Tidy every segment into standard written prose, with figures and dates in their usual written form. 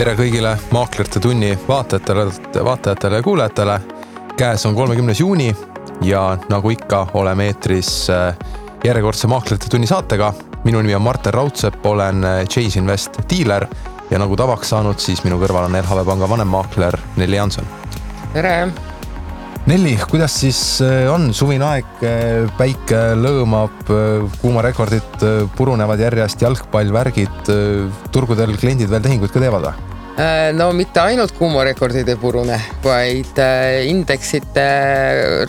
Tere kõigile Maaklerite tunni vaatajatele ja kuulajatele. Käes on 30. juuni ja nagu ikka oleme eetris järjekordse Maaklerite tunni saatega. Minu nimi on Martin Raudsepp, olen Chase Invest dealer ja nagu tavaks saanud, siis minu kõrval on LHV Panga vanemmaakler Nelli Jansson. Tere! Nelli, kuidas siis on suvine aeg, päike lõõmab, kuumarekordid purunevad järjest, jalgpallvärgid, turgudel kliendid veel tehinguid ka teevad? No mitte ainult kuumarekordid ei purune, vaid indeksite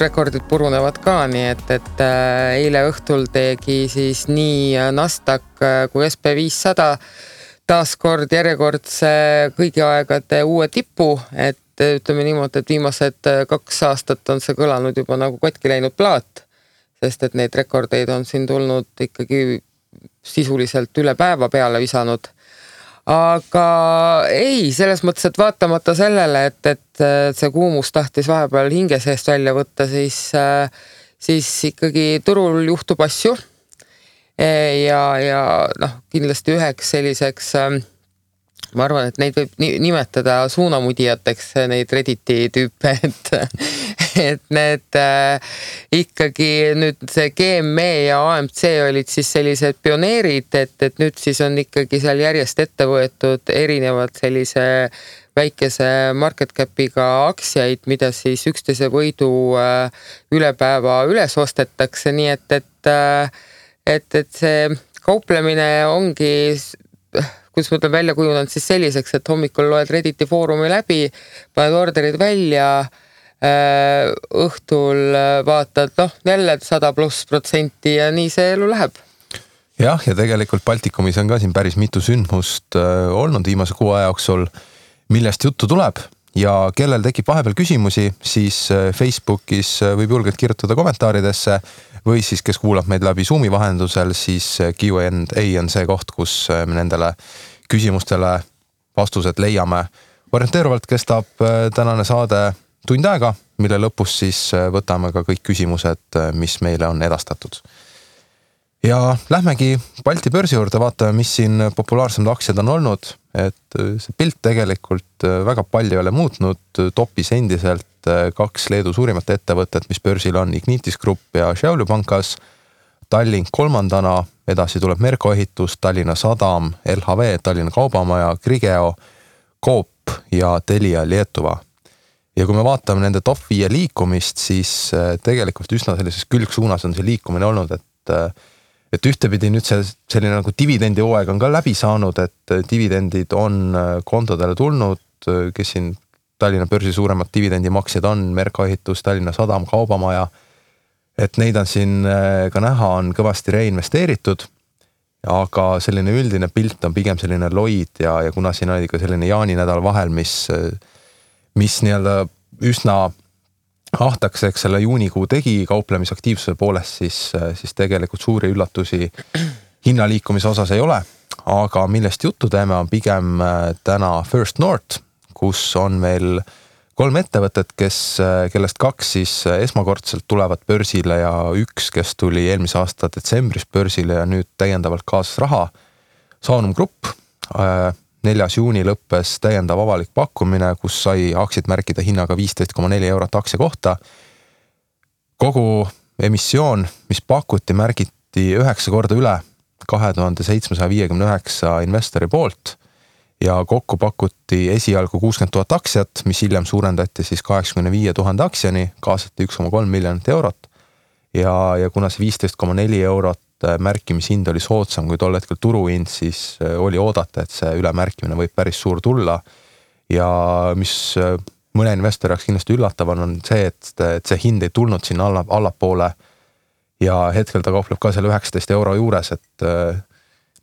rekordid purunevad ka, nii et eile õhtul tegi siis nii Nasdaq kui SP500 taaskord järjekordse kõigi aegade uue tipu, et ütleme niimoodi, et viimased 2 aastat on see kõlanud juba nagu katki läinud plaat, sest et neid rekordeid on siin tulnud ikkagi sisuliselt üle päeva peale visanud. Aga ei, selles mõttes, et vaatamata sellele, et see kuumus tahtis vahepeal hinge seest välja võtta, siis ikkagi turul juhtub asju ja kindlasti üheks selliseks ma arvan, et neid võib nimetada suunamudijateks, neid Redditi tüüpe, et need ikkagi nüüd see GME ja AMC olid siis sellised pioneerid, et nüüd siis on ikkagi seal järjest ette võetud erinevad sellise väikese market capiga aktsiaid, mida siis 11 võidu üle päeva üles ostetakse, nii et see kauplemine ongi kus ma ütlen välja kujunenud siis selliseks, et hommikul loed Redditi foorumi läbi, paned orderid välja, õhtul vaatad, jälle 100+% ja nii see elu läheb. Jah, ja tegelikult Baltikumis on ka siin päris mitu sündmust olnud viimase 6 aja jooksul, millest juttu tuleb ja kellel tekib vahepeal küsimusi, siis Facebookis võib julgelt kirjutada kommentaaridesse või siis, kes kuulab meid läbi Zoomi vahendusel, siis Q&A on see koht, kus me nendele küsimustele vastused leiame. Orienteeruvalt kestab tänane saade tund aega, mille lõpus siis võtame ka kõik küsimused, mis meile on edastatud. Ja lähmegi Balti börsi juurde, vaatame, mis siin populaarsemad aktsiad on olnud, et see pilt tegelikult väga palju ei ole muutnud, topis endiselt 2 Leedu suurimat ettevõtet, mis börsil on Ignitis Group ja Šiaulių Pankas, Tallink 3. edasi tuleb Merko ehitus, Tallinna Sadam, LHV, Tallinna Kaubamaja, Grigeo, Coop ja Telia Lietuva. Ja kui me vaatame nende top 5 liikumist, siis tegelikult üsna sellises külgsuunas on see liikumine olnud, et ühtepidi nüüd selline nagu dividendi hooaeg on ka läbi saanud, et dividendid on kontodele tulnud, kes siin Tallinna börsi suuremad dividendimaksjad on, Merko ehitus, Tallinna Sadam, Kaubamaja, et neid on siin ka näha, on kõvasti reinvesteeritud, aga selline üldine pilt on pigem selline loid ja kuna siin oli ka selline jaaninädal vahel, mis nii-öelda üsna ahtakseks selle juunikuu tegi kauplemisaktiivsuse poolest, siis tegelikult suuri üllatusi hinnaliikumise osas ei ole, aga millest juttu teeme on pigem täna First North, kus on meil 3 ettevõtet, kellest 2 siis esmakordselt tulevad börsile ja 1, kes tuli eelmise aasta detsembris börsile ja nüüd täiendavalt kaasas raha. Saunum Grupp, 4. juuni lõppes täiendav avalik pakkumine, kus sai aktsiat märkida hinnaga 15,4 eurot aktsia kohta. Kogu emissioon, mis pakuti, märgiti 9 korda üle 2759 investori poolt ja kokku pakuti esialgu 60 000 aktsiat, mis hiljem suurendati siis 85 000 aktsiani, kaasati 1,3 miljonit eurot ja kuna see 15,4 eurot märkimishind oli soodsam kui tol hetkel turuhind, siis oli oodata, et see ülemärkimine võib päris suur tulla ja mis mõne investori jaoks kindlasti üllatavan on see, et see hind ei tulnud sinna allapoole ja hetkel ta kaupleb ka selle 19 euro juures, et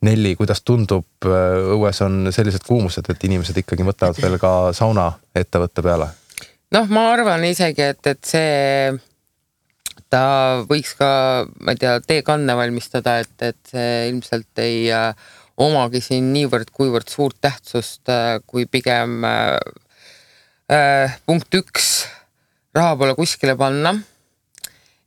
Nelli, kuidas tundub, õues on sellised kuumused, et inimesed ikkagi võtavad veel ka sauna ettevõtte peale? Ma arvan isegi, et see ta võiks ka, ma ei tea, teekanne valmistada, et see ilmselt ei omagi siin niivõrd kuivõrd suurt tähtsust, kui pigem punkt 1 raha pole kuskile panna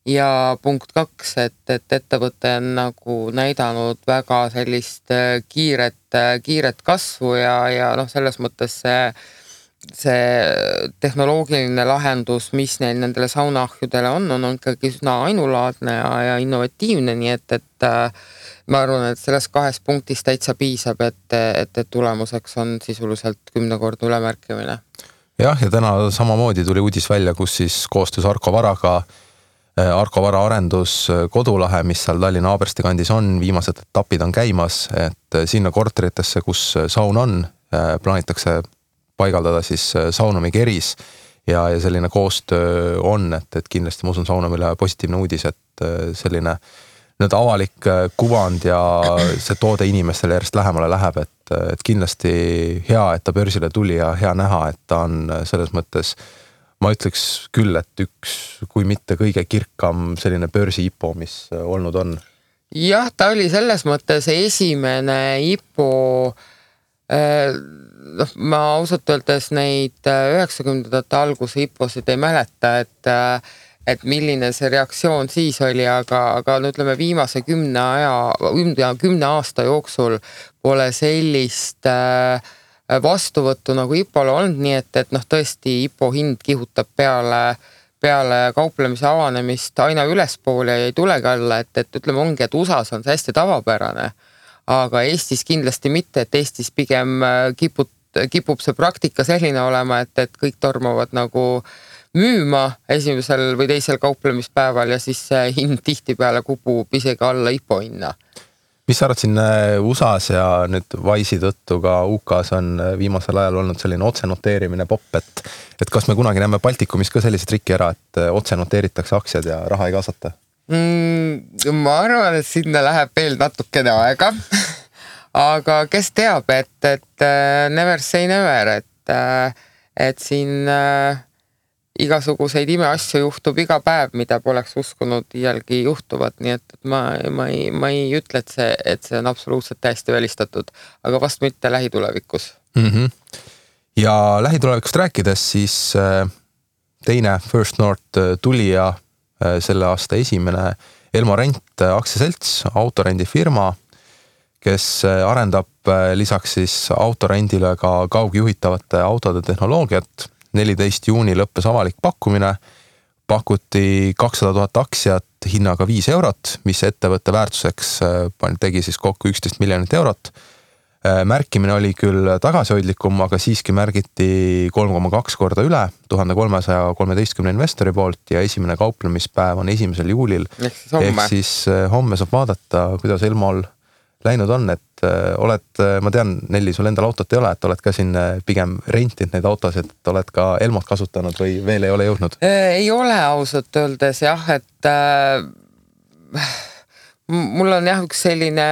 ja punkt 2, et ettevõte on nagu näidanud väga sellist kiiret kasvu ja noh, selles mõttes see tehnoloogiline lahendus, mis neil nendele saunaahjudele on ikkagi üsna ainulaadne ja innovatiivne, nii et ma arvan, et selles 2 punktis täitsa piisab, et tulemuseks on sisuliselt 10-kordne ülemärkimine. Jah, ja täna samamoodi tuli uudis välja, kus siis koostöös Arko Varaga, Arko Vara arendus Kodulahe, mis seal Tallinna Aabersti kandis on, viimased etapid on käimas, et sinna korteritesse, kus saun on, plaanitakse paigaldada siis Saunumi keris ja selline koostöö on, et kindlasti ma usun Saunumile positiivne uudis, et selline nüüd avalik kuvand ja see toode inimestele järjest lähemale läheb, et kindlasti hea, et ta börsile tuli ja hea näha, et ta on selles mõttes, ma ütleks küll, et üks, kui mitte kõige kirkam selline börsi IPO, mis olnud on. Jah, ta oli selles mõttes esimene IPO, ma ausalt öeldes neid 90ndate alguse IPO-sid ei mäleta, et milline see reaktsioon siis oli, aga no ütleme viimase 10 aasta jooksul pole sellist vastuvõttu nagu IPO-le olnud, nii et noh, tõesti IPO hind kihutab peale kauplemise avanemist aina ülespoole ja ei tulegi alla, et ütleme ongi, et USAs on see hästi tavapärane, aga Eestis kindlasti mitte, et Eestis pigem kipub see praktika selline olema, et kõik tormavad nagu müüma esimesel või teisel kauplemispäeval ja siis see hind tihtipeale kupub isegi alla IPO hinna. Mis sa arvad siin USAs ja nüüd Wise'i tõttu ka UK's on viimasel ajal olnud selline otsenoteerimine popp, et kas me kunagi näeme Baltikumis ka sellise triki ära, et otsenoteeritakse aktsiad ja raha ei kaasata? Ma arvan, et sinna läheb veel natukene aega, aga kes teab, et never say never, et siin igasuguseid imeasju juhtub iga päev, mida poleks uskunud iialgi juhtuvad, nii et ma ei ütle, et see on absoluutselt täiesti välistatud, aga vast mitte lähitulevikus. Ja lähitulevikust rääkides, siis teine First North tuli ja selle aasta esimene Elmo Rent aktsiaselts, autorendifirma, kes arendab lisaks siis autorendile ka kaugjuhitavate autode tehnoloogiat. 14 juuni lõppes avalik pakkumine, pakuti 200 000 aktsiat hinnaga 5 eurot, mis ettevõtte väärtuseks tegi siis kokku 11 miljonit eurot. Märkimine oli küll tagasihoidlikum, aga siiski märgiti 3,2 korda üle 1313 investori poolt ja esimene kauplemispäev on 1. juulil. Ehk siis homme saab vaadata, kuidas Elmol läinud on, et ma tean, Nelli, sul endal autot ei ole, et oled ka siin pigem rentinud neid autosid, et oled ka Elmot kasutanud või veel ei ole jõudnud? Ei ole ausalt öeldes jah, et mul on jah üks selline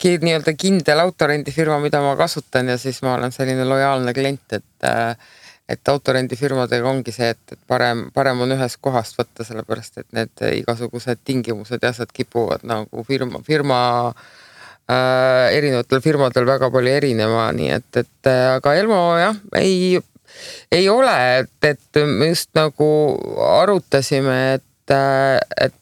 nii-öelda kindel autorendifirma, mida ma kasutan ja siis ma olen selline lojaalne klient, et autorendifirmadega ongi see, et parem on ühes kohast võtta, sellepärast et need igasugused tingimused ja asjad kipuvad nagu firma erinevatel firmadel väga palju erinema, nii et aga Elmo jah, ei ole, et me just nagu arutasime, et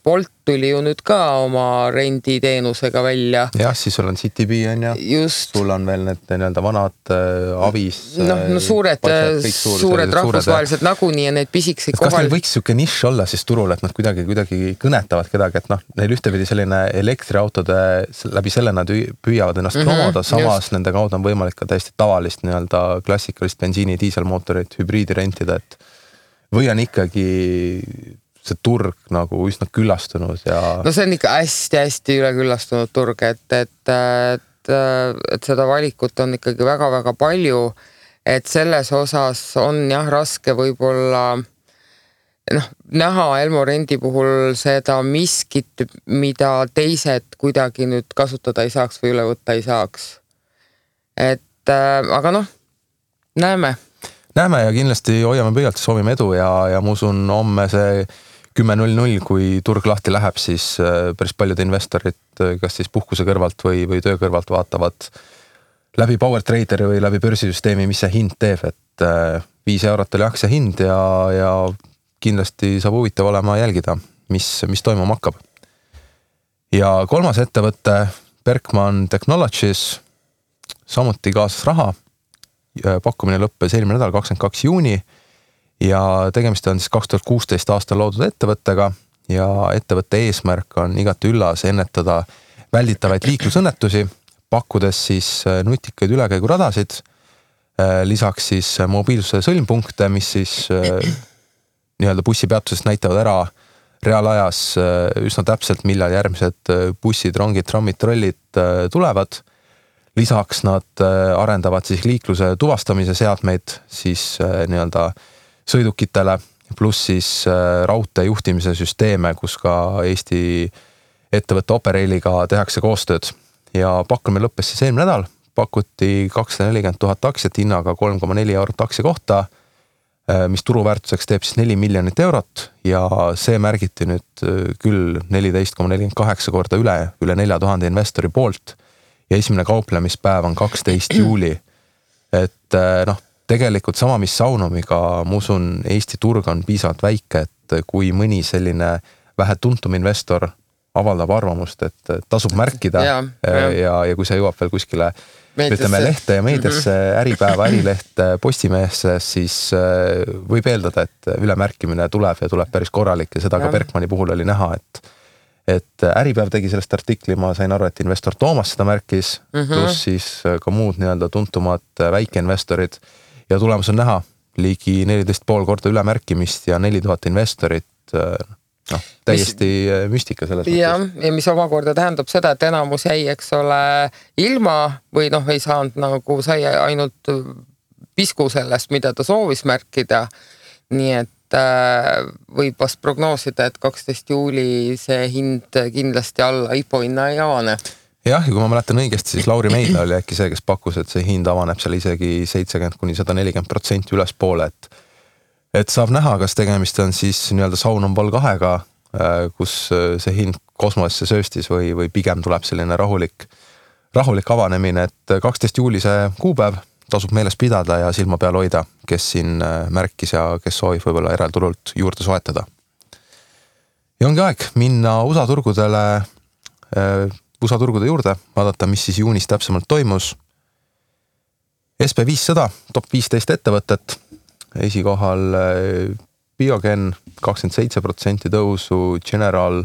Bolt tuli ju nüüd ka oma renditeenusega välja. Jah, siis sul on CityB on ja just. Sul on veel need nii-öelda vanad avis. No suured rahvusvahelised nagunii ja need pisiksid kohal. Kas neil võiks siuke nišš olla siis turul, et nad kuidagi kõnetavad kedagi, et neil ühtepidi selline elektriautode läbi selle nad püüavad ennast promoda, samas nende kaudu on võimalik ka täiesti tavalist nii-öelda klassikalist bensiini diiselmootorit, hübriidi rentida, et või on ikkagi see turg nagu üsna küllastunud ja... No see on ikka hästi üleküllastunud turg, et seda valikut on ikkagi väga-väga palju, et selles osas on jah raske võib-olla näha Elmo Rendi puhul seda miskit, mida teised kuidagi nüüd kasutada ei saaks või üle võtta ei saaks. Aga näeme. Näeme ja kindlasti hoiame pöialt, soovime edu ja ma usun homme see 10.00, kui turg lahti läheb, siis päris paljud investorid, kas siis puhkuse kõrvalt või töö kõrvalt vaatavad läbi Power Traderi või läbi börsisüsteemi, mis see hind teeb, et 5 eurot oli aktsia hind ja kindlasti saab huvitav olema jälgida. mis toimuma hakkab. Ja kolmas ettevõte, Berkman Technologies, samuti kaasas raha. Pakkumine lõppes eelmine nädal 22. juuni ja tegemist on siis 2016 aastal loodud ettevõttega ja ettevõtte eesmärk on igati üllas ennetada välditavaid liiklusõnnetusi, pakkudes siis nutikaid ülekäiguradasid, lisaks siis mobiilsuse sõlmpunkte, mis siis nii-öelda bussipeatusest näitavad ära reaalajas üsna täpselt, millal järgmised bussid, rongid, trammid, trollid tulevad. Lisaks nad arendavad siis liikluse tuvastamise seadmeid siis nii-öelda sõidukitele, pluss siis raudtee juhtimise süsteeme, kus ka Eesti ettevõtte Operailiga tehakse koostööd. Ja pakkumine lõppes siis eelmine nädal, pakuti 240 000 aktsiat hinnaga 3,4 eurot aktsia kohta, mis turuväärtuseks teeb siis 4 miljonit eurot ja see märgiti nüüd küll 14,48 korda üle 4000 investori poolt ja esimene kauplemispäev on 12. juuli. Et tegelikult sama, mis Saunumiga, ma usun, Eesti turg on piisavalt väike, et kui mõni selline vähe tuntum investor avaldab arvamust, et tasub märkida ja kui see jõuab veel kuskile ütleme lehte ja meediasse, Äripäeva, Ärileht, Postimehesse, siis võib eeldada, et ülemärkimine tuleb ja tuleb päris korralik ja seda ka Berkmani puhul oli näha, et Äripäev tegi sellest artikli, ma sain aru, et investor Toomas seda märkis, pluss siis ka muud nii-öelda tuntumad väikeinvestorid ja tulemus on näha ligi 14,5 korda ülemärkimist ja 4000 investorit, täiesti müstika selles mõttes. Ja mis omakorda tähendab seda, et enamus jäi, eks ole, ilma või ei saanud sai ainult pisku sellest, mida ta soovis märkida. Nii et võib vast prognoosida, et 12. juuli see hind kindlasti alla IPO hinna ei avane. Jah, ja kui ma mäletan õigesti, siis Lauri Meidla oli äkki see, kes pakkus, et see hind avaneb seal isegi 70-140% ülespoole, et saab näha, kas tegemist on siis nii-öelda Saunum Vol 2-ga, kus see hind kosmosesse sööstis või pigem tuleb selline rahulik avanemine, et 12. juuli see kuupäev tasub meeles pidada ja silma peal hoida, kes siin märkis ja kes soovib võib-olla eralturult juurde soetada. Ja ongi aeg minna USA turgude juurde, vaadata, mis siis juunis täpsemalt toimus. SP500, top 15 ettevõtet, esikohal Biogen 27% tõusu, General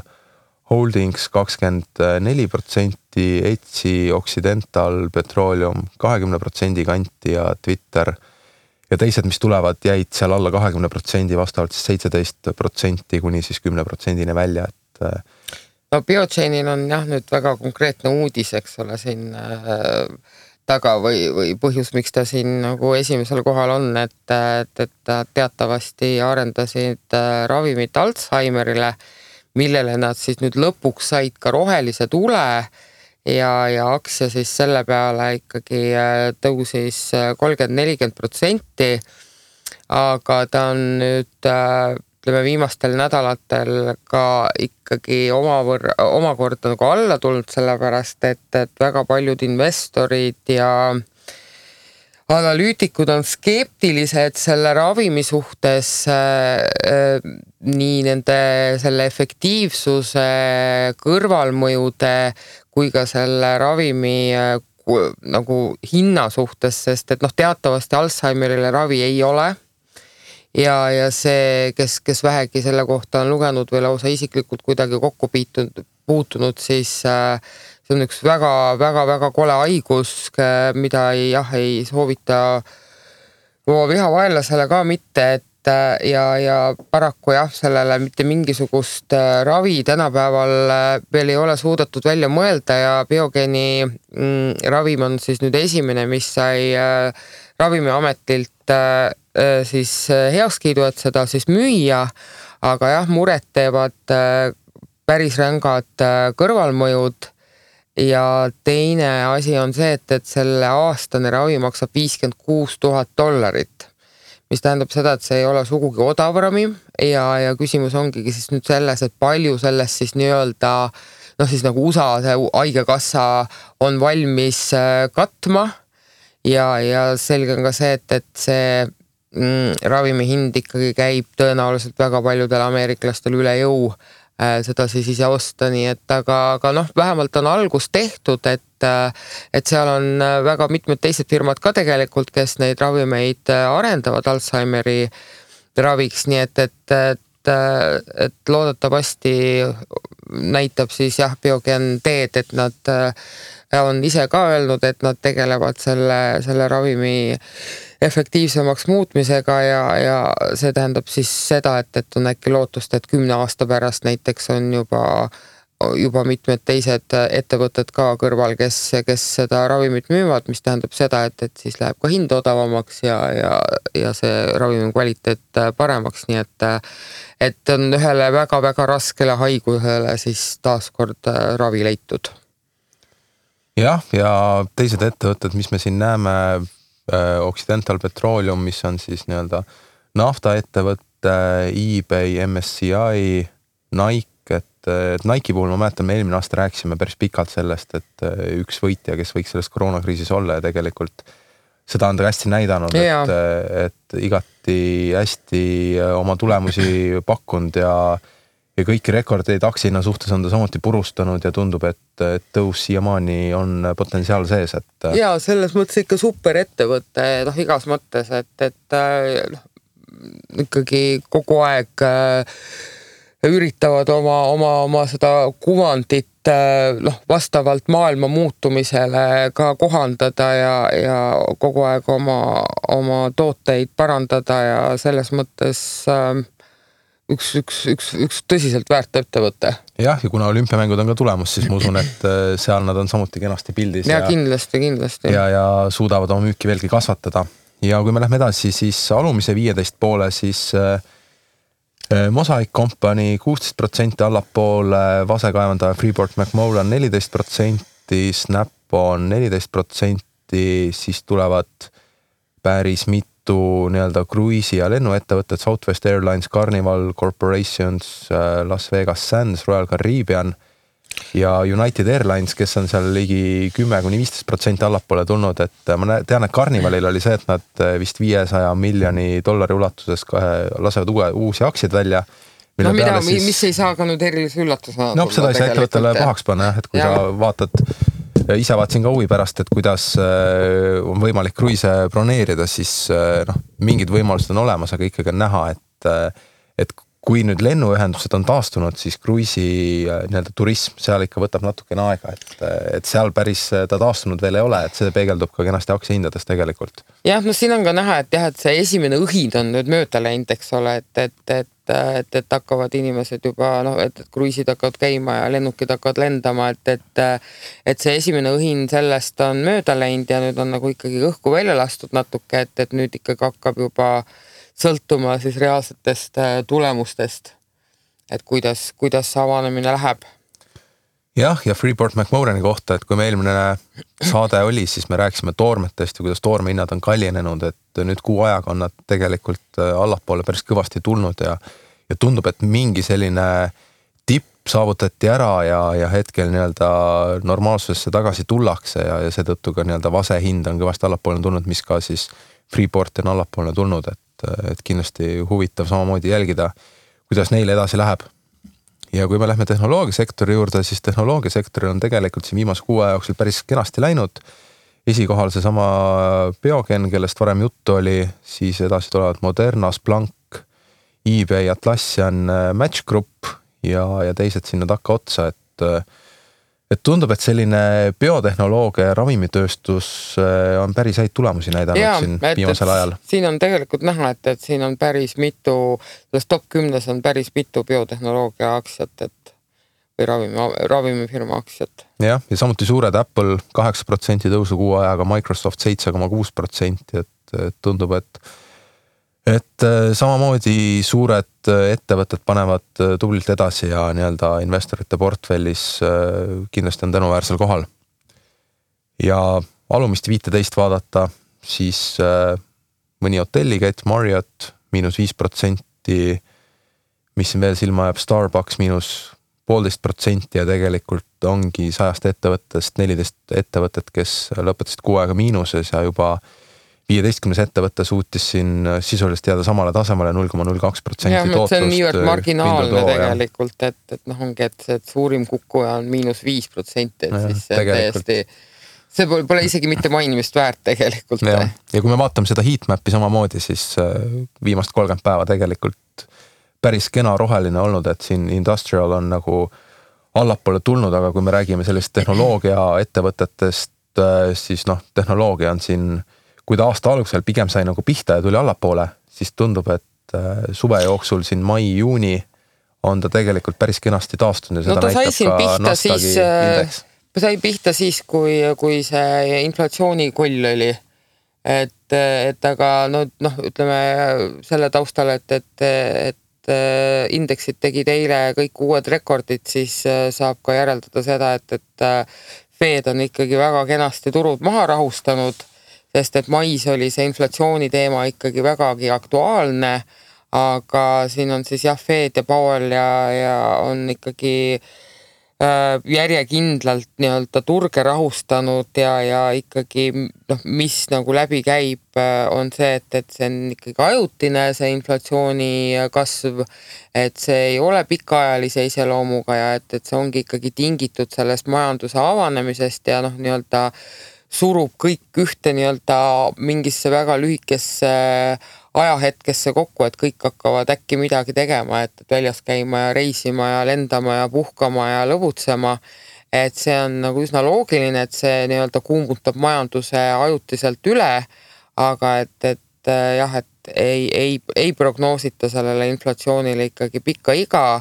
Holdings 24%, Etsi, Occidental, Petroleum 20% kanti ja Twitter ja teised, mis tulevad, jäid seal alla 20%, vastavalt siis 17% kuni siis 10% välja. Biogenil on nüüd väga konkreetne uudis, eks ole, siin taga või põhjus, miks ta siin nagu esimesel kohal on, et teatavasti arendasid ravimit Alzheimerile, millele nad siis nüüd lõpuks said ka rohelise tule ja aktsia siis selle peale ikkagi tõusis 30-40%, aga ta on nüüd viimastel nädalatel ka ikkagi omakorda nagu alla tulnud, sellepärast, et väga paljud investorid ja analüütikud on skeptilised selle ravimi suhtes nii nende selle efektiivsuse kõrvalmõjude kui ka selle ravimi nagu hinna suhtes, sest et teatavasti Alzheimerile ravi ei ole. Ja see, kes vähegi selle kohta on lugenud või lausa isiklikult kuidagi kokku puutunud, siis see on üks väga kole haigus, mida ei soovita oma vihavaenlasele ka mitte, ja paraku sellele mitte mingisugust ravi tänapäeval veel ei ole suudetud välja mõelda ja Biogeni ravim on siis nüüd esimene, mis sai Ravimiametilt siis heakskiidu, et seda siis müüa, aga muret teevad päris rängad kõrvalmõjud ja teine asi on see, et selle aastane ravi maksab $56,000, mis tähendab seda, et see ei ole sugugi odav ravim ja küsimus ongi siis nüüd selles, et palju sellest siis nii-öelda siis nagu USA see haigekassa on valmis katma ja selge on ka see, et see ravimi hind ikkagi käib tõenäoliselt väga paljudel ameeriklastel üle jõu seda siis ise osta, nii et aga noh, vähemalt on algus tehtud, et seal on väga mitmed teised firmad ka tegelikult, kes neid ravimeid arendavad Alzheimeri raviks, nii et loodetavasti näitab siis Biogen teed, et nad on ise ka öelnud, et nad tegelevad selle ravimi efektiivsemaks muutmisega ja see tähendab siis seda, et on äkki lootust, et 10 aasta pärast näiteks on juba mitmed teised ettevõtted ka kõrval, kes seda ravimit müüvad, mis tähendab seda, et siis läheb ka hind odavamaks ja see ravimi kvaliteet paremaks, nii et on ühele väga-väga raskele haigusele siis taaskord ravi leitud. Jah, ja teised ettevõtted, mis me siin näeme, Occidental Petroleum, mis on siis nii-öelda naftaettevõtte, eBay, MSCI, Nike, et Nike puhul ma mäletan, me eelmine aasta rääkisime päris pikalt sellest, et üks võitja, kes võiks selles koroonakriisis olla ja tegelikult seda on ta hästi näidanud, et igati hästi oma tulemusi pakkunud ja kõiki rekordeid aktsioina suhtes on ta samuti purustanud ja tundub, et tõus siiamaani on potentsiaal sees, et ja selles mõttes ikka super ettevõte, igas mõttes, et ikkagi kogu aeg üritavad oma seda kuvandit vastavalt maailma muutumisele ka kohandada ja kogu aeg oma tooteid parandada ja selles mõttes üks tõsiselt väärt ettevõte. Jah, ja kuna olümpiamängud on ka tulemus, siis ma usun, et seal nad on samuti kenasti pildis. Ja kindlasti. Ja suudavad oma müüki veelgi kasvatada. Ja kui me lähme edasi, siis alumise 15 poole, siis Mosaic Company 16% allapoole, vasekaevandaja Freeport McMoran 14%, Snap on 14%, siis tulevad päris mitu nii-öelda kruiisi- ja lennuettevõtted, Southwest Airlines, Carnival Corporations, Las Vegas Sands, Royal Caribbean ja United Airlines, kes on seal ligi 10-15% allapoole tulnud, et ma tean, et Carnivalil oli see, et nad vist $500 miljoni ulatuses lasevad uusi aktsiaid välja. Mis ei saa ka nüüd erilise üllatusena. Seda ei saa ettevõttele pahaks panna, et kui sa vaatad ise vaatasin ka huvi pärast, et kuidas on võimalik kruiise broneerida, siis mingid võimalused on olemas, aga ikkagi on näha, et kui nüüd lennuühendused on taastunud, siis kruiisi nii-öelda turism seal ikka võtab natukene aega, et seal päris ta taastunud veel ei ole, et see peegeldub ka kenasti aktsiahindades tegelikult. Jah, siin on ka näha, et see esimene õhind on nüüd mööda läinud, eks ole, et hakkavad inimesed juba, et kruiisid hakkavad käima ja lennukid hakkavad lendama, et see esimene õhin sellest on mööda läinud ja nüüd on nagu ikkagi õhku välja lastud natuke, et nüüd ikkagi hakkab juba sõltuma siis reaalsetest tulemustest, et kuidas see avanemine läheb. Jah, ja Freeport McMorani kohta, et kui me eelmine saade oli, siis me rääkisime toormetest ja kuidas toormehinnad on kallinenud, et nüüd kuu ajaga on nad tegelikult allapoole päris kõvasti tulnud ja tundub, et mingi selline tipp saavutati ära ja hetkel nii-öelda normaalsusesse tagasi tullakse ja seetõttu ka nii-öelda vase hind on kõvasti allapoole tulnud, mis ka siis Freeport on allapoole tulnud, et kindlasti huvitav samamoodi jälgida, kuidas neil edasi läheb. Ja kui me lähme tehnoloogiasektori juurde, siis tehnoloogiasektoril on tegelikult siin viimase kuu aja jooksul päris kenasti läinud. Esikohal see sama Biogen, kellest varem juttu oli, siis edasi tulevad Moderna, Splunk, eBay, Atlassian, Match Group ja teised sinna takka otsa, et tundub, et selline biotehnoloogia ja ravimitööstus on päris häid tulemusi näidanud siin viimasel ajal. Siin on tegelikult näha, et siin on päris mitu, selles top 10 on päris mitu biotehnoloogia aktsiat või ravimifirma aktsiat. Ja samuti suured Apple 8% tõusu kuu ajaga, Microsoft 7,6%, et tundub, et samamoodi suured ettevõtted panevad tublilt edasi ja nii-öelda investorite portfellis kindlasti on tänuväärsel kohal. Ja alumist 15 vaadata, siis mõni hotellikett, Marriott -5%, mis siin veel silma jääb, Starbucks -1,5% ja tegelikult ongi 100 ettevõttest 14 ettevõtted, kes lõpetasid kuu aega miinuses ja juba 15 ettevõtte suutis siin sisuliselt jääda samale tasemele 0,02% tootlust. See on niivõrd marginaalne tegelikult, et ongi, et suurim kukkuja on -5%, et siis täiesti, see pole isegi mitte mainimist väärt tegelikult. Ja kui me vaatame seda heatmap'i samamoodi, siis viimast 30 päeva tegelikult päris kena roheline olnud, et siin industrial on nagu allapoole tulnud, aga kui me räägime sellist tehnoloogia ettevõtetest, siis tehnoloogia on siin, kui ta aasta algusel pigem sai nagu pihta ja tuli allapoole, siis tundub, et suve jooksul siin mai-juuni on ta tegelikult päris kenasti taastunud ja seda näitab ka Nasdaqi indeks. Sai pihta siis, kui see inflatsioonikoll oli, et aga ütleme selle taustal, et indeksid tegid eile kõik uued rekordid, siis saab ka järeldada seda, et Fed on ikkagi väga kenasti turud maha rahustanud, sest et mais oli see inflatsiooni teema ikkagi vägagi aktuaalne, aga siin on siis Fed ja Powell ja on ikkagi järjekindlalt nii-öelda turge rahustanud ja ikkagi mis nagu läbi käib, on see, et see on ikkagi ajutine, see inflatsiooni kasv, et see ei ole pikaajalise iseloomuga ja et see ongi ikkagi tingitud sellest majanduse avanemisest ja nii-öelda surub kõik ühte nii-öelda mingisse väga lühikesse ajahetkesse kokku, et kõik hakkavad äkki midagi tegema, et väljas käima ja reisima ja lendama ja puhkama ja lõbutsema. Et see on nagu üsna loogiline, et see nii-öelda kuumutab majanduse ajutiselt üle, aga et ei prognoosita sellele inflatsioonile ikkagi pikka iga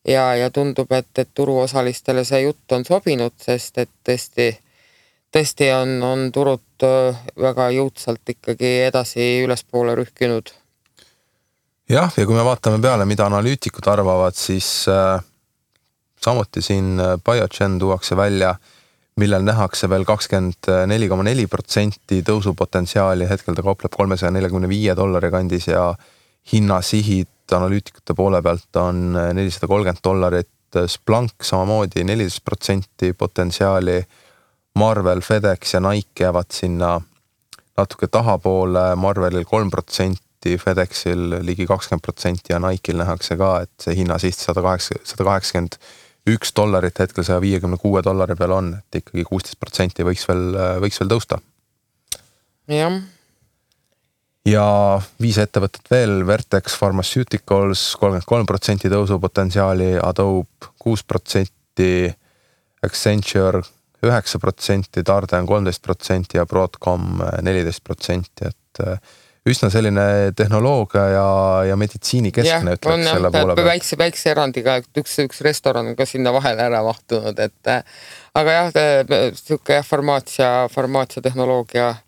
ja tundub, et turuosalistele see jutt on sobinud, sest et tõesti on turud väga jõudsalt ikkagi edasi ülespoole rühkinud. Ja kui me vaatame peale, mida analüütikud arvavad, siis samuti siin Biogen tuuakse välja, millel nähakse veel 24,4% tõusupotentsiaali, hetkel ta kaupleb $345 kandis ja hinnasihid analüütikute poole pealt on $430, Splunk samamoodi 14% potentsiaali, Marvel, FedEx ja Nike jäävad sinna natuke tahapoole, Marvelil 3%, FedExil ligi 20% ja Nike'il nähakse ka, et see hinnasiht $181 hetkel $156 peal on, et ikkagi 16% võiks veel tõusta. Ja 5 ettevõtet veel, Vertex Pharmaceuticals 33% tõusupotentsiaali, Adobe 6%, Accenture 9%, Darden 13% ja Broadcom 14%, et üsna selline tehnoloogia ja meditsiini keskne ütleks selle poole peal. Väikse erandiga, üks restoran on ka sinna vahele ära mahtunud, aga selline farmaatsia tehnoloogia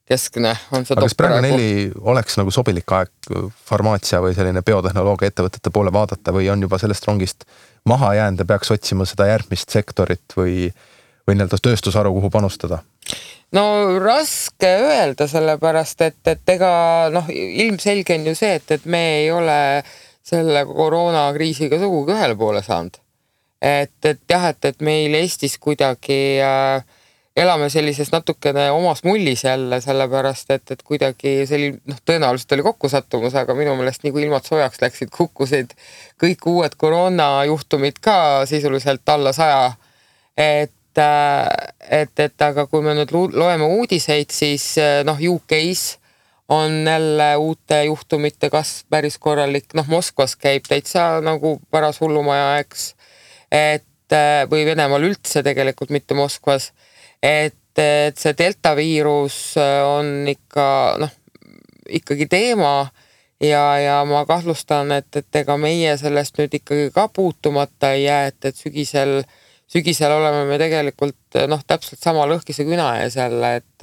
keskne on see. Aga kas praegu neili oleks nagu sobilik aeg farmaatsia või selline biotehnoloogia ettevõtete poole vaadata või on juba sellest rongist maha jäänud ja peaks otsima seda järgmist sektorit või nii-öelda tööstusharu, kuhu panustada? No raske öelda sellepärast, et ega ilmselge on ju see, et me ei ole selle koroonakriisiga sugugi ühele poole saanud. Et meil Eestis kuidagi elame sellises natukene omas mullis jälle, sellepärast, et kuidagi tõenäoliselt oli kokkusattumus, aga minu meelest nii kui ilmad soojaks läksid, kukkusid kõik uued koroonajuhtumid ka sisuliselt alla 100, aga kui me nüüd loeme uudiseid, siis UK-s on jälle uute juhtumite kasv päris korralik, Moskvas käib täitsa nagu paras hullumaja, eks, või Venemaal üldse tegelikult mitte Moskvas, et see delta viirus on ikkagi teema ja ma kahtlustan, et ega meie sellest nüüd ikkagi ka puutumata ei jää, et sügisel oleme me tegelikult täpselt sama lõhkise küna ees jälle, et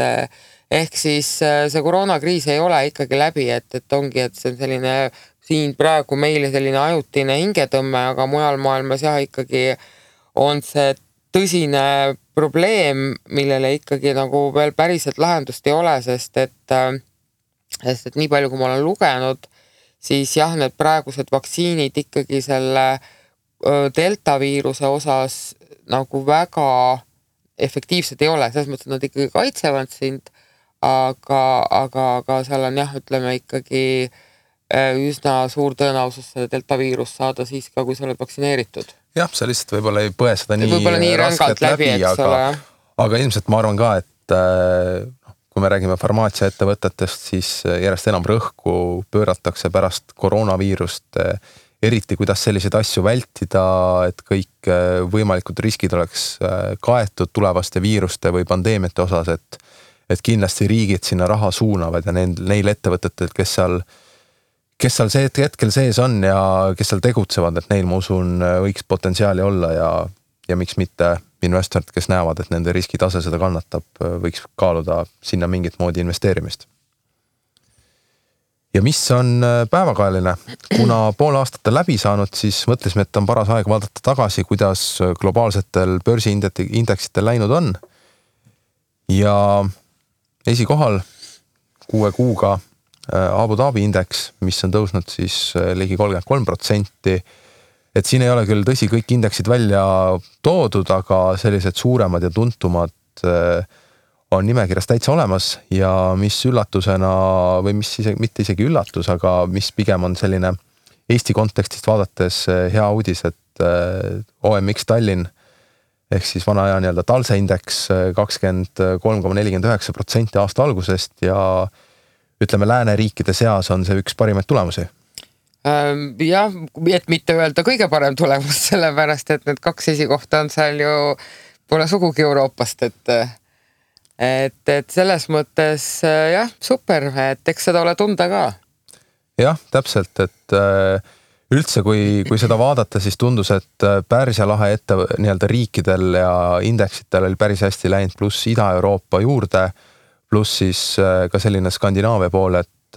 ehk siis see koroonakriis ei ole ikkagi läbi, et ongi, et see on selline siin praegu meile selline ajutine hingetõmme, aga mujal maailmas ikkagi on see tõsine probleem, millele ikkagi nagu veel päriselt lahendust ei ole, sest et nii palju, kui ma olen lugenud, siis need praegused vaktsiinid ikkagi selle delta viiruse osas nagu väga efektiivsed ei ole, selles mõttes, et nad ikkagi kaitsevad sind, aga seal on jah, ütleme ikkagi üsna suur tõenäosus seda delta viirus saada siis ka, kui sa oled vaktsineeritud. Jah, sa lihtsalt võib-olla ei põe seda nii raskelt läbi, aga ilmselt ma arvan ka, et kui me räägime farmaatsiaettevõtetest, siis järjest enam rõhku pööratakse pärast koroonaviirust, eriti kuidas selliseid asju vältida, et kõik võimalikud riskid oleks kaetud tulevaste viiruste või pandeemiate osas, et kindlasti riigid sinna raha suunavad ja neil ettevõtetel, kes seal see hetkel sees on ja kes seal tegutsevad, et neil, ma usun, võiks potentsiaali olla ja miks mitte investorid, kes näevad, et nende riskitase seda kannatab, võiks kaaluda sinna mingit moodi investeerimist. Ja mis on päevakajaline? Kuna pool aastat läbi saanud, siis mõtlesime, et on paras aeg vaadata tagasi, kuidas globaalsetel börsiindeksitel läinud on. Ja esikohal 6 kuuga Abu Dhabi indeks, mis on tõusnud siis ligi 33%. Et siin ei ole küll tõsi kõik indeksid välja toodud, aga sellised suuremad ja tuntumad on nimekirjas täitsa olemas ja mis üllatusena või mis mitte isegi üllatus, aga mis pigem on selline Eesti kontekstist vaadates hea uudis, et OMX Tallinn ehk siis vana aja nii-öelda talse indeks 23,49% aasta algusest ja ütleme lääneriikide seas on see üks parimaid tulemusi. Jah, et mitte öelda kõige parem tulemus, sellepärast, et need 2 esikohta on seal ju pole sugugi Euroopast, et selles mõttes jah, super, et eks seda ole tunda ka. Jah, täpselt, et üldse kui seda vaadata, siis tundus, et Pärsia lahe nii-öelda riikidel ja indeksitel oli päris hästi läinud, pluss Ida-Euroopa juurde, pluss siis ka selline Skandinaavia pool, et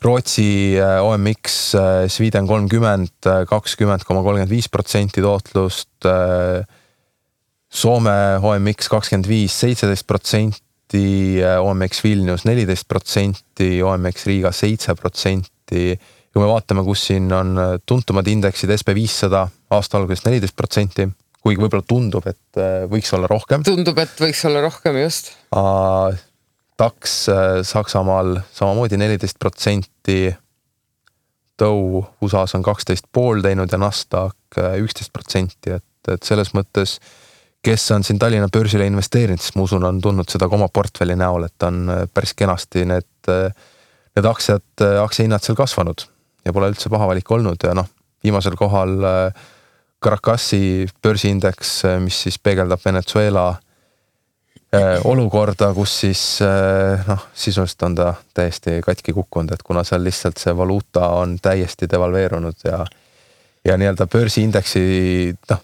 Rootsi OMX Sweden 30, 20,35% tootlust, Soome OMX 25, 17%, OMX Vilnius 14%, OMX Riga 7%. Kui me vaatame, kus siin on tuntumad indeksid SP500 aasta algusest 14%, kuigi võib-olla tundub, et võiks olla rohkem. Tundub, et võiks olla rohkem, just. DAX Saksamaal samamoodi 14%, Dow USAs on 12,5 teinud ja Nasdaq 11%, et selles mõttes kes on siin Tallinna börsile investeerinud, siis ma usun, on tundnud seda ka oma portfelli näol, et on päris kenasti need aktsiahinnad seal kasvanud ja pole üldse paha valik olnud ja viimasel kohal Caracasi börsiindeks, mis siis peegeldab Venezuela olukorda, kus siis sisuliselt on ta täiesti katki kukkunud, et kuna seal lihtsalt see valuuta on täiesti devalveerunud ja nii-öelda börsiindeksi ta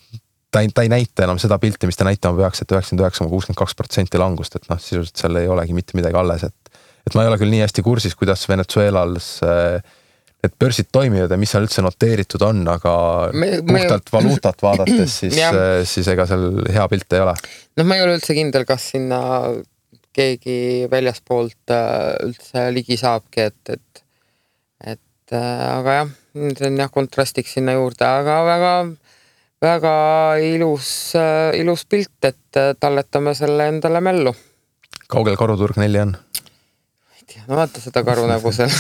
ei näita enam seda pilti, mis ta näitama peaks, et 99,62% langust, et sisuliselt seal ei olegi mitte midagi alles, et ma ei ole küll nii hästi kursis, kuidas Venezuelas need börsid toimivad ja mis seal üldse noteeritud on, aga puhtalt valuutat vaadates, siis ega seal hea pilt ei ole. Ma ei ole üldse kindel, kas sinna keegi väljaspoolt üldse ligi saabki, aga jah, see on jah kontrastiks sinna juurde, aga väga ilus pilt, et talletame selle endale mällu. Kaugel karuturg 4 on? Ei tea, vaata seda karu nägu seal.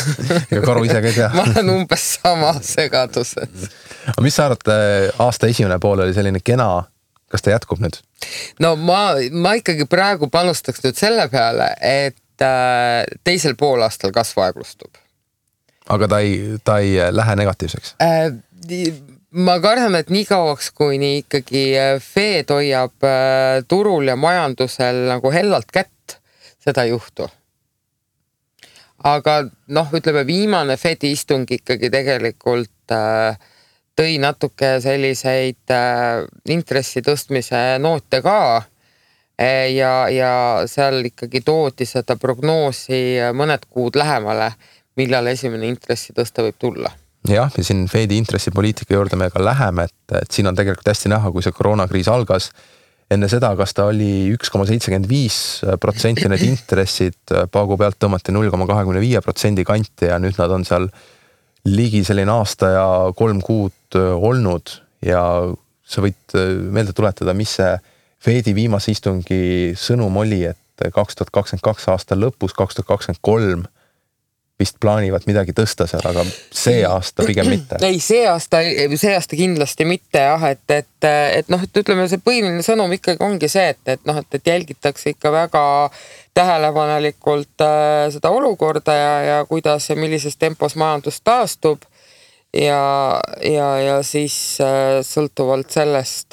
Ega karu ise ka ei tea. Ma olen umbes sama segaduses. Aga mis sa arvad, aasta esimene pool oli selline kena, kas ta jätkub nüüd? No ma ikkagi praegu panustaks nüüd selle peale, et teisel poolaastal kasv aeglustub. Aga ta ei lähe negatiivseks? Ma kardan, et nii kauaks, kui nii ikkagi Fed hoiab turul ja majandusel nagu hellalt kätt, seda ei juhtu. Aga ütleme, viimane Fedi istung ikkagi tegelikult tõi natuke selliseid intressi tõstmise noote ka ja seal ikkagi toodi seda prognoosi mõned kuud lähemale, millal esimene intressi tõsta võib tulla. Jah, ja siin Fedi intressipoliitika juurde me ka läheme, et siin on tegelikult hästi näha, kui see koroonakriis algas. Enne seda, kas ta oli 1,75% need intressid, paagu pealt tõmmati 0,25% kanti ja nüüd nad on seal ligi selline aasta ja 3 kuud olnud ja sa võid meelde tuletada, mis see Fedi viimase istungi sõnum oli, et et 2022 aasta lõpus, 2023 vist plaanivad midagi tõsta seal, aga see aasta pigem mitte. Ei, see aasta kindlasti mitte jah, et noh, et ütleme, see põhiline sõnum ikkagi ongi see, et jälgitakse ikka väga tähelepanelikult seda olukorda ja kuidas ja millises tempos majandus taastub ja siis sõltuvalt sellest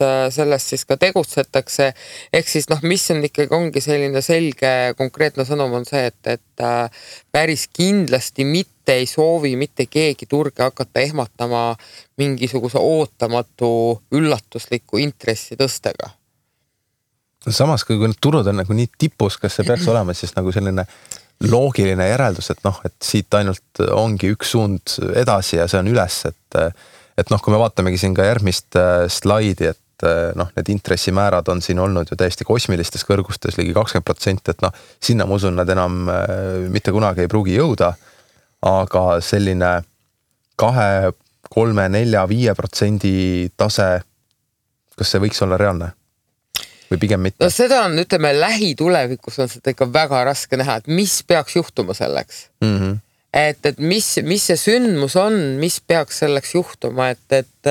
siis ka tegutsetakse. Ehk siis noh, mis on ikkagi ongi selline selge konkreetne sõnum on see, et päris kindlasti mitte ei soovi mitte keegi turge hakata ehmatama mingisuguse ootamatu üllatusliku intressi tõstega. Samas, kui need turud on nagu nii tipus, kas see peaks olema siis nagu selline loogiline järeldus, et noh, et siit ainult ongi üks suund edasi ja see on üles, et noh, kui me vaatamegi siin ka järgmist slaidi, et noh, need intressimäärad on siin olnud ju täiesti kosmilistes kõrgustes ligi 20%, et noh, sinna ma usun, nad enam mitte kunagi ei pruugi jõuda, aga selline 2, 3, 4, 5% tase, kas see võiks olla reaalne? Või pigem mitte? No seda on, ütleme, lähitulevikus on seda ikka väga raske näha, et mis peaks juhtuma selleks. Mm-hmm. Et mis see sündmus on, mis peaks selleks juhtuma, et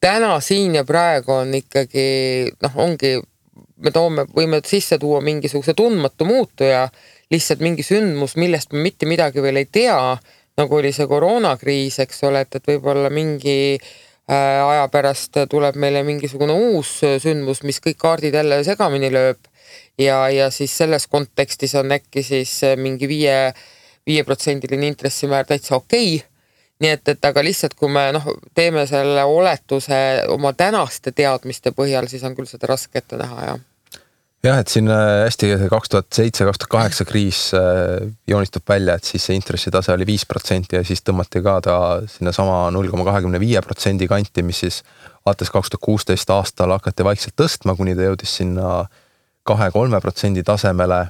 täna siin ja praegu on ikkagi, noh, ongi, võime sisse tuua mingisuguse tundmatu muutuja, lihtsalt mingi sündmus, millest me mitte midagi veel ei tea, nagu oli see koroonakriis, eks ole, et võib-olla mingi aja pärast tuleb meile mingisugune uus sündmus, mis kõik kaardid jälle segamini lööb ja siis selles kontekstis on äkki siis mingi 5% intressimäär täitsa okei. Nii et aga lihtsalt kui me teeme selle oletuse oma tänaste teadmiste põhjal, siis on küll seda raske ette näha, jah. Jah, et siin hästi 2007-2008 kriis joonistub välja, et siis see intressitase oli 5% ja siis tõmmati ka ta sinna sama 0,25% kanti, mis siis alates 2016 aastal hakati vaikselt tõstma, kuni ta jõudis sinna 2-3% tasemele,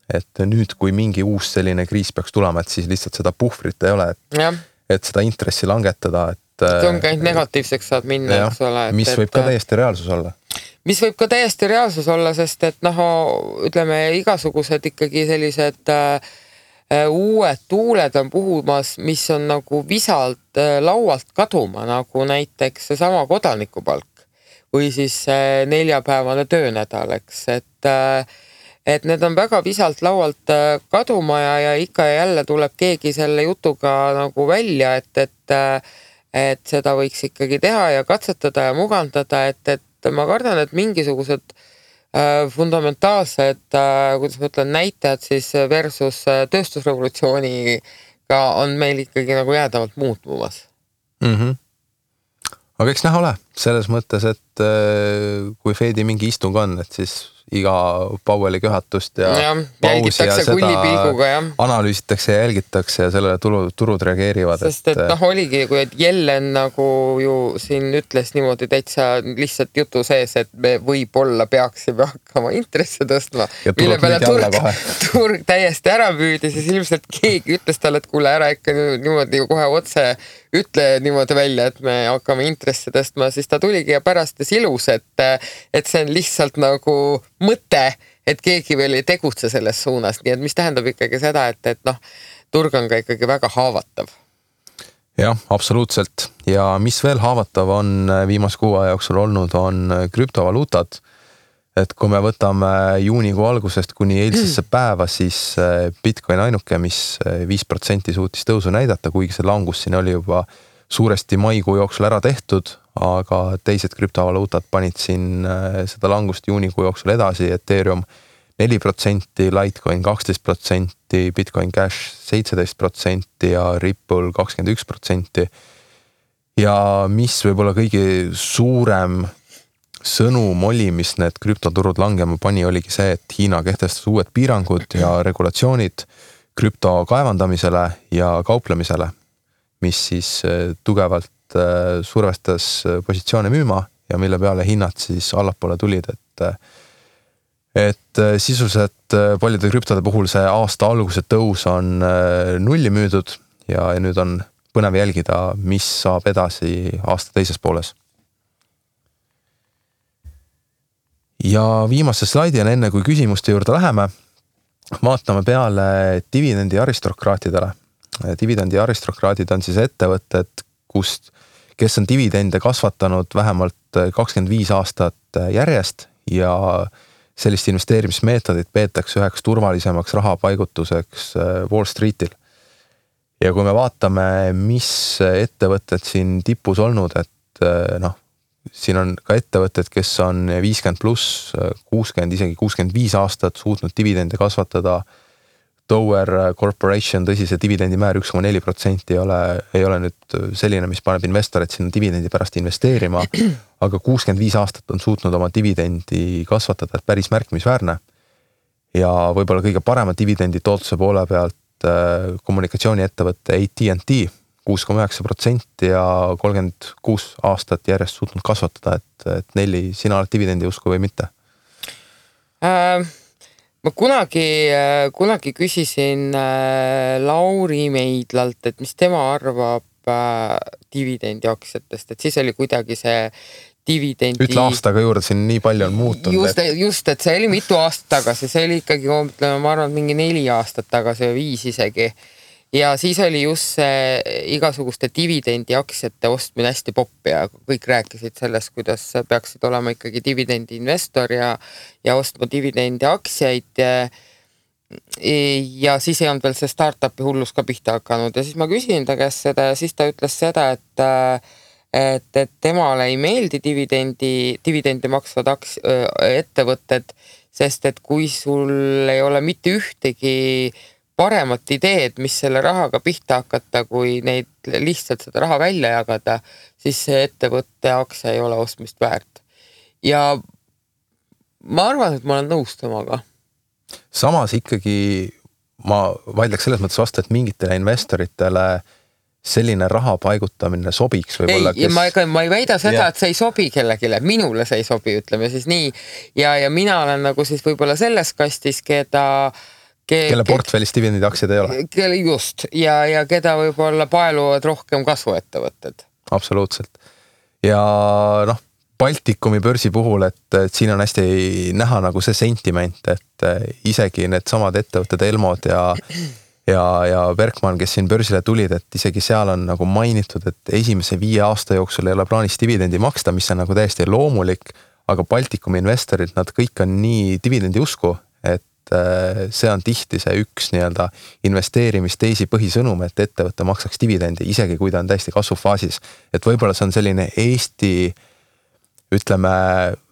et nüüd, kui mingi uus selline kriis peaks tulema, et siis lihtsalt seda puhvrit ei ole, et seda intressi langetada. See on ka ainult negatiivseks saad minna, eks ole. Mis võib ka täiesti reaalsus olla. Mis võib ka täiesti reaalsus olla, sest et ütleme, igasugused ikkagi sellised uued tuuled on puhumas, mis on nagu visalt laualt kaduma, nagu näiteks seesama kodanikupalk või siis 4-päevane töönädal, eks, et need on väga visalt laualt kaduma ja ikka ja jälle tuleb keegi selle jutuga nagu välja, et seda võiks ikkagi teha ja katsetada ja mugandada, et ma kardan, et mingisugused fundamentaalsed, kuidas ma ütlen, näitajad siis versus tööstusrevolutsiooniga on meil ikkagi nagu jäädavalt muutmumas. Mm-hmm. Aga eks näha ole, selles mõttes, et kui Fedi mingi istung on, et siis iga Powelli köhatust ja pausi ja seda analüüsitakse ja jälgitakse ja sellele turud reageerivad. Sest et oligi, kui Jellen nagu ju siin ütles niimoodi täitsa lihtsalt jutu sees, et me võib-olla peaksime hakkama intresse tõstma, mille peale turg täiesti ära püüdi, siis ilmselt keegi ütles talle, et kuule ära ikka niimoodi kohe otse ütle niimoodi välja, et me hakkame intresse tõstma, siis ta tuligi ja pärast ilus, et see on lihtsalt nagu mõte, et keegi veel ei tegutse selles suunas, nii et mis tähendab ikkagi seda, et turg on ka ikkagi väga haavatav. Jah, absoluutselt. Ja mis veel haavatav on viimase kuu aja jooksul olnud, on krüptovaluutad. Et kui me võtame juunikuu algusest kuni eilsesse päeva, siis Bitcoin ainuke, mis 5% suutis tõusu näidata, kuigi see langus siin oli juba suuresti maikuu jooksul ära tehtud, aga teised krüptovaluutad panid siin seda langust juunikuu jooksul edasi, Ethereum 4%, Litecoin 12%, Bitcoin Cash 17% ja Ripple 21%. Ja mis võib-olla kõige suurem sõnum oli, mis need krüptoturud langema pani, oligi see, et Hiina kehtestas uued piirangud ja regulatsioonid krüpto kaevandamisele ja kauplemisele, mis siis tugevalt survestas positsioone müüma ja mille peale hinnad siis allapoole tulid, et sisuliselt paljude krüptode puhul see aasta alguse tõus on nulli müüdud ja nüüd on põnev jälgida, mis saab edasi aasta teises pooles. Ja viimase slaidi on enne, kui küsimuste juurde läheme, vaatame peale dividendi aristokraatidele. Dividendi aristokraatid on siis ettevõtted, kes on dividende kasvatanud vähemalt 25 aastat järjest ja sellist investeerimismeetodit peetakse üheks turvalisemaks rahapaigutuseks Wall Streetil. Ja kui me vaatame, mis ettevõtted siin tipus olnud, et siin on ka ettevõtted, kes on 50 pluss, 60, isegi 65 aastat suutnud dividende kasvatada. Tower Corporation, tõsi, see dividendimäär 1,4% ei ole nüüd selline, mis paneb investorid sinna dividendi pärast investeerima, aga 65 aastat on suutnud oma dividendi kasvatada, et päris märkimisväärne. Ja võib-olla kõige parema dividendi tootluse poole pealt kommunikatsiooniettevõtte AT&T 6,9% ja 36 aastat järjest suutnud kasvatada, et Nelli, sina oled dividendi usku või mitte? Ma kunagi küsisin Lauri Meidlalt, et mis tema arvab dividendi aktsiatest, et siis oli kuidagi see dividendi... Ütle aastaga juurde, siin nii palju on muutunud. Just, et see oli mitu aastat tagasi, see oli ikkagi, ma arvan, mingi 4 aastat tagasi või 5 isegi. Ja siis oli just see igasuguste dividendi aktsiate ostmine hästi popp ja kõik rääkisid sellest, kuidas peaksid olema ikkagi dividendi investor ja ostma dividendi aktsiaid. Ja siis ei olnud veel see startupi hullus ka pihta hakanud ja siis ma küsin ta käest seda ja siis ta ütles seda, et temale ei meeldi dividendi maksvad ettevõtted, sest et kui sul ei ole mitte ühtegi paremat ideed, mis selle rahaga pihta hakata, kui neid lihtsalt seda raha välja jagada, siis see ettevõtte aktsia ei ole ostmist väärt. Ja ma arvan, et ma olen nõus temaga. Samas ikkagi ma vaidleks selles mõttes vastu, et mingitele investoritele selline raha paigutamine sobiks võib-olla. Ma ei väida seda, et see ei sobi kellegile, minule see ei sobi, ütleme siis nii. Ja mina olen nagu siis võib-olla selles kastis, kelle portfellis dividendi aktsiad ei ole. Just, ja keda võib-olla paeluvad rohkem kasvuettevõtted. Absoluutselt. Ja Baltikumi börsi puhul, et siin on hästi näha nagu see sentiment, et isegi need samad ettevõtted Elmod ja Berkman, kes siin börsile tulid, et isegi seal on nagu mainitud, et esimese 5 aasta jooksul ei ole plaanis dividendi maksta, mis on nagu täiesti loomulik, aga Baltikumi investorid, nad kõik on nii dividendi usku, et see on tihti see üks nii-öelda investeerimisteisi põhisõnum, et ettevõtte maksaks dividendi, isegi kui ta on täiesti kasvufaasis. Et võib-olla see on selline Eesti, ütleme,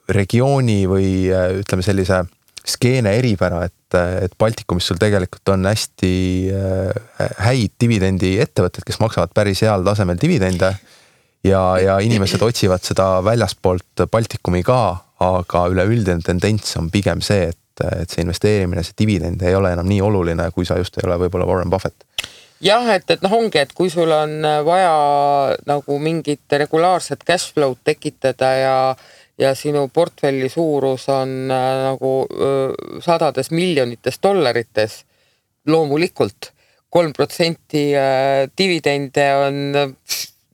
regiooni või ütleme sellise skeene eripära, et Baltikumis sul tegelikult on hästi häid dividendi ettevõtted, kes maksavad päris heal tasemel dividende ja inimesed otsivad seda väljaspoolt Baltikumi ka, aga üleüldine tendents on pigem see, et see investeerimine, see dividend ei ole enam nii oluline, kui sa just ei ole võib-olla Warren Buffett. Jah, et ongi, et kui sul on vaja nagu mingit regulaarset cashflow tekitada ja sinu portfelli suurus on nagu sadades miljonites dollarites, loomulikult 3% dividende on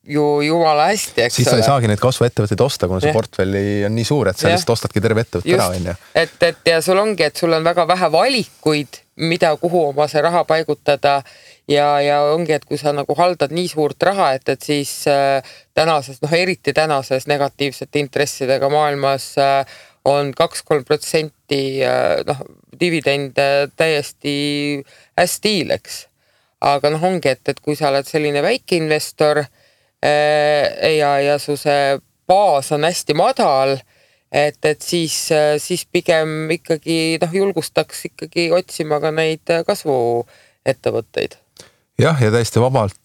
ju jumala hästi, eks siis sa ei saagi neid kasvuettevõtteid osta, kuna see portfelli on nii suur, et sa lihtsalt ostadki terve ettevõtte ära. Et ja sul ongi, et sul on väga vähe valikuid, kuhu oma see raha paigutada ja ongi, et kui sa nagu haldad nii suurt raha, et siis tänases, eriti tänases negatiivsete intressidega maailmas on 2-3% dividende täiesti hästi hiileks. Aga ongi, et kui sa oled selline väike investor ja su see baas on hästi madal, et siis pigem ikkagi julgustaks ikkagi otsima ka neid kasvuettevõtteid. Jah, ja täiesti vabalt,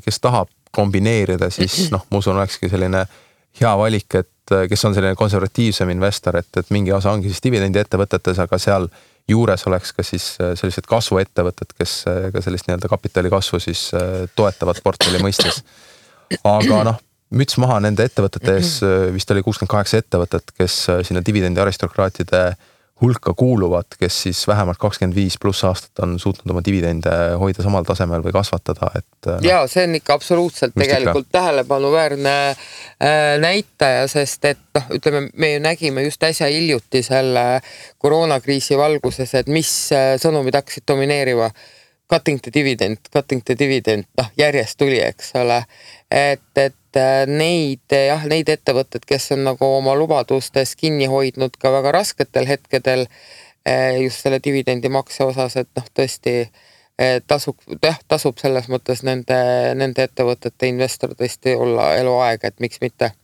kes tahab kombineerida, siis ma usun, olekski selline hea valik, et kes on selline konservatiivsem investor, et mingi osa ongi siis dividendi ettevõtetes, aga seal juures oleks ka siis sellised kasvuettevõtted, kes ka sellist nii-öelda kapitali kasvu siis toetavad portfelli mõistes. Aga müts maha nende ettevõtetes, vist oli 68 ettevõtet, kes sinna dividendi aristokraatide hulka kuuluvad, kes siis vähemalt 25+ aastat on suutnud oma dividende hoida samal tasemel või kasvatada, et ja see on ikka absoluutselt tegelikult tähelepanuväärne näitaja, sest et ütleme, me ju nägime just äsja hiljuti selle koroonakriisi valguses, et mis sõnumid hakkasid domineeriva. Cutting the dividend, järjest tuli, eks ole, et neid ettevõtted, kes on nagu oma lubadustes kinni hoidnud ka väga rasketel hetkedel just selle dividendi makse osas, et tõesti tasub selles mõttes nende ettevõtete investor tõesti olla eluaeg, et miks mitte.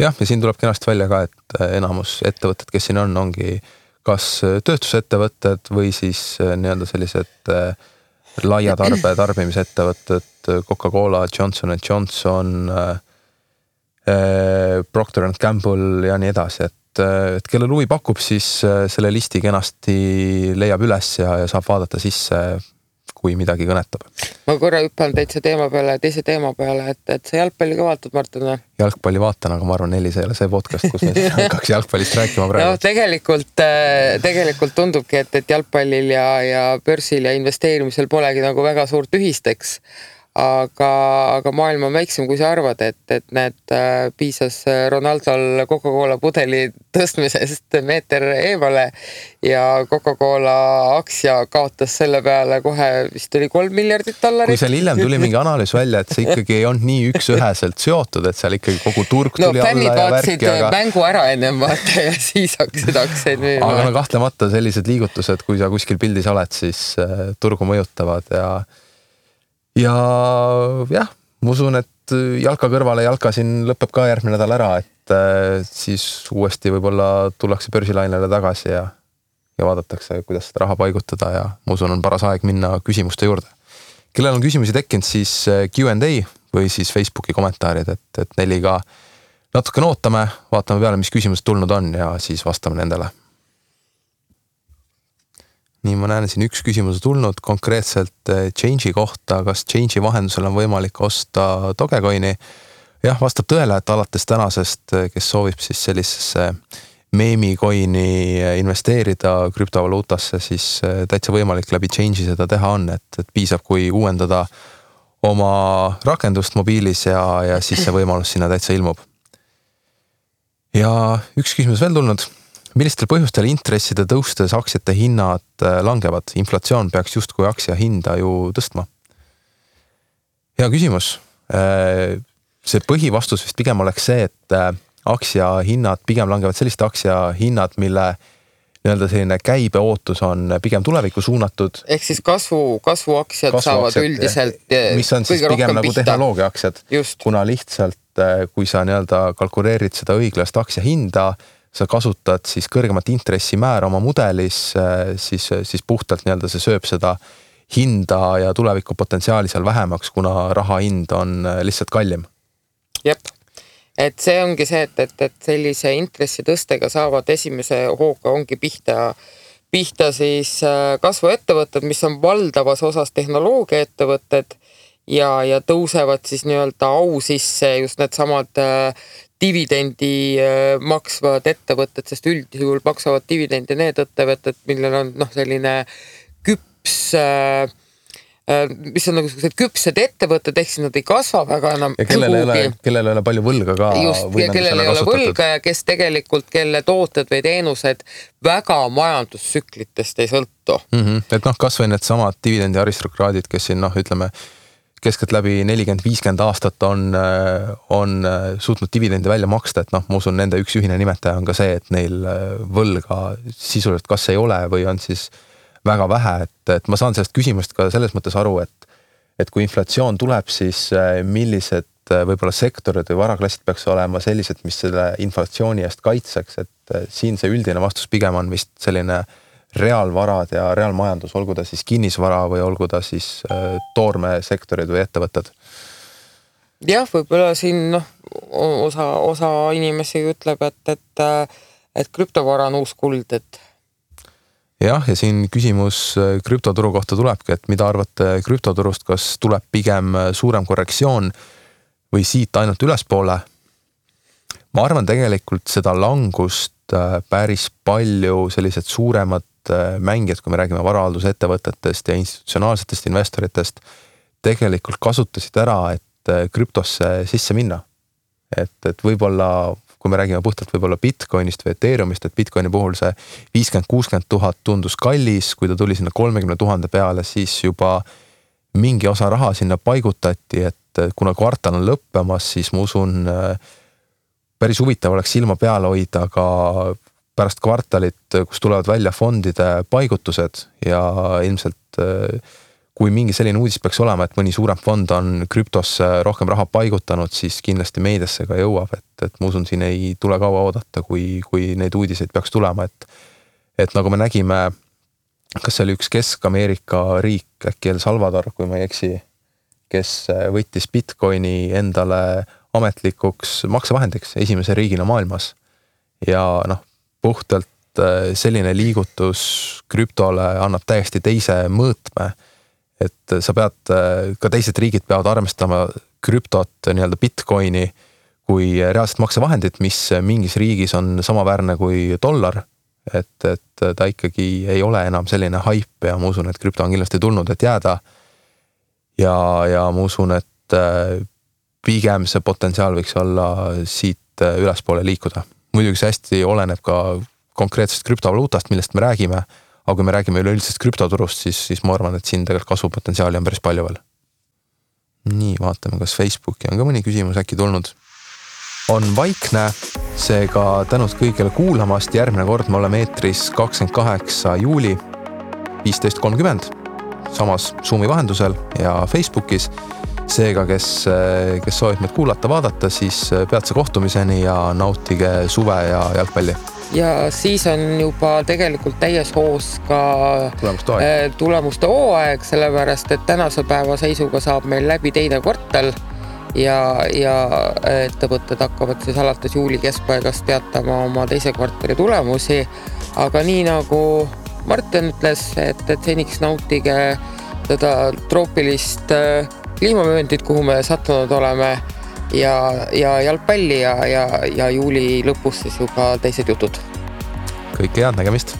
Jah, ja siin tuleb kenasti välja ka, et enamus ettevõtted, kes siin ongi kas tööstusettevõtted või siis nii-öelda sellised laia tarbimisettevõtted, Coca-Cola, Johnson & Johnson, Procter & Gamble ja nii edasi, et kellel huvi pakub, siis selle listi kenasti leiab üles ja saab vaadata sisse, kui midagi kõnetab. Ma korra hüppan teise teema peale, et sa jalgpalli ka vaatad, Martin? Jalgpalli vaatan, aga ma arvan, Nelis ei ole see podcast, kus me hakkaks jalgpallist rääkima praegu. No tegelikult tundubki, et jalgpallil ja börsil ja investeerimisel polegi nagu väga suurt ühisteks. Aga maailm on väiksem, kui sa arvad, et piisas Ronaldol Coca-Cola pudeli tõstmisest meeter eemale ja Coca-Cola aktsia kaotas selle peale kohe vist oli $3 miljardit. Kui seal hiljem tuli mingi analüüs välja, et see ikkagi ei olnud nii üksüheselt seotud, et seal ikkagi kogu turg tuli alla ja värki. Mängu ära ennem vaata ja siis hakkasid aktsiaid müüma. Aga kahtlemata sellised liigutused, kui sa kuskil pildis oled, siis turgu mõjutavad ja jah, ma usun, et jalka kõrvale jalka siin lõpeb ka järgmine nädal ära, et siis uuesti võib-olla tullakse börsilainele tagasi ja vaadatakse, kuidas seda raha paigutada ja ma usun, on paras aeg minna küsimuste juurde. Kellel on küsimusi tekkinud, siis Q&A või siis Facebooki kommentaarid, et Neliga natuke ootame, vaatame peale, mis küsimused tulnud on ja siis vastame nendele. Nii, ma näen siin üks küsimus tulnud konkreetselt Change'i kohta, kas Change'i vahendusel on võimalik osta Dogecoini? Jah, vastab tõele, et alates tänasest, kes soovib siis sellisesse meemicoini investeerida krüptovaluutasse, siis täitsa võimalik läbi Change'i seda teha on, et piisab, kui uuendada oma rakendust mobiilis ja siis see võimalus sinna täitsa ilmub. Ja üks küsimus veel tulnud. Millistel põhjustel intresside tõustes aktsiate hinnad langevad? Inflatsioon peaks justkui aktsia hinda ju tõstma. Hea küsimus. See põhivastus vist pigem oleks see, et aktsia hinnad pigem langevad selliste aktsia hinnad, mille nii-öelda selline käibe ootus on pigem tulevikku suunatud. Ehk siis kasvuaktsiad saavad üldiselt mis on siis pigem nagu tehnoloogia aktsiad. Kuna lihtsalt, kui sa nii-öelda kalkuleerid seda õiglast aktsia hinda, sa kasutad siis kõrgemat intressimäära oma mudelis, siis puhtalt nii-öelda see sööb seda hinda ja tuleviku potentsiaali seal vähemaks, kuna raha hind on lihtsalt kallim. Jep, et see ongi see, et sellise intressi tõstega saavad esimese hooga ongi pihta siis kasvuettevõtted, mis on valdavas osas tehnoloogia ettevõtted ja tõusevad siis nii-öelda au sisse just need samad dividendi maksvad ettevõtted, sest üldjuhul maksavad dividendi need ettevõtted, millel on selline küps, mis on nagu sellised küpsed ettevõtted, ehk siis nad ei kasva väga enam. Ja kellel ei ole palju võlga ka. Just, ja kellel ei ole võlga ja kes tegelikult, kelle tooted või teenused väga majandustsüklitest ei sõltu. Et kas või need samad dividendi aristokraadid, kes siin ütleme, keskelt läbi 40-50 aastat on suutnud dividendi välja maksta, et ma usun, nende üks ühine nimetaja on ka see, et neil võlga sisuliselt kas ei ole või on siis väga vähe, et ma saan sellest küsimust ka selles mõttes aru, et kui inflatsioon tuleb, siis millised võib-olla sektorid või varaklassid peaks olema sellised, mis selle inflatsiooni eest kaitseks, et siin see üldine vastus pigem on vist selline reaalvarad ja reaalmajandus, olgu ta siis kinnisvara või olgu ta siis toormesektorid või ettevõtted. Jah, võib-olla siin osa inimesi ütleb, et krüptovara on uus kuld, et jah, ja siin küsimus krüptoturu kohta tulebki, et mida arvate krüptoturust, kas tuleb pigem suurem korrektsioon või siit ainult ülespoole? Ma arvan tegelikult seda langust päris palju sellised suuremad mängijad, kui me räägime varahaldusettevõtetest ja institutsionaalsetest investoritest, tegelikult kasutasid ära, et krüptosse sisse minna. Et võib-olla, kui me räägime puhtalt võib-olla Bitcoinist või Ethereumist, et Bitcoini puhul see 50-60 000 tundus kallis, kui ta tuli sinna 30 000 peale, siis juba mingi osa raha sinna paigutati, et kuna kvartal on lõppemas, siis ma usun, päris huvitav oleks silma peale hoida ka pärast kvartalit, kus tulevad välja fondide paigutused ja ilmselt kui mingi selline uudis peaks olema, et mõni suurem fond on krüptosse rohkem raha paigutanud, siis kindlasti meediasse ka jõuab, et ma usun, siin ei tule kaua oodata, kui neid uudiseid peaks tulema, et nagu me nägime, kas see oli üks Kesk-Ameerika riik, äkki El Salvador, kui ma ei eksi, kes võttis Bitcoini endale ametlikuks maksevahendiks esimese riigina maailmas ja puhtalt selline liigutus krüptole annab täiesti teise mõõtme, et sa pead, ka teised riigid peavad armestama krüptot nii-öelda Bitcoini kui reaalset maksevahendit, mis mingis riigis on samaväärne kui dollar, et ta ikkagi ei ole enam selline haip ja ma usun, et krüpto on kindlasti tulnud, et jääda ja ma usun, et pigem see potentsiaal võiks olla siit ülespoole liikuda. Muidugi see hästi oleneb ka konkreetsest krüptovaluutast, millest me räägime, aga kui me räägime üleüldisest krüptoturust, siis ma arvan, et siin tegelikult kasvupotentsiaali on päris palju veel. Nii, vaatame, kas Facebooki on ka mõni küsimus äkki tulnud. On vaikne, seega tänud kõigile kuulamast, järgmine kord me oleme eetris 28. juuli 15.30 samas Zoomi vahendusel ja Facebookis. Seega, kes soovib meid kuulata, vaadata, siis peatse kohtumiseni ja nautige suve ja jalgpalli. Ja siis on juba tegelikult täies hoos ka tulemuste hooaeg, sellepärast, et tänase päeva seisuga saab meil läbi teine kvartal ja ettevõtted hakkavad siis alates juuli keskpaigast teatama oma teise kvartali tulemusi. Aga nii nagu Martin ütles, et seniks nautige seda troopilist kliimavööndit, kuhu me sattunud oleme ja jalgpalli ja juuli lõpus siis juba teised jutud. Kõike head nägemist!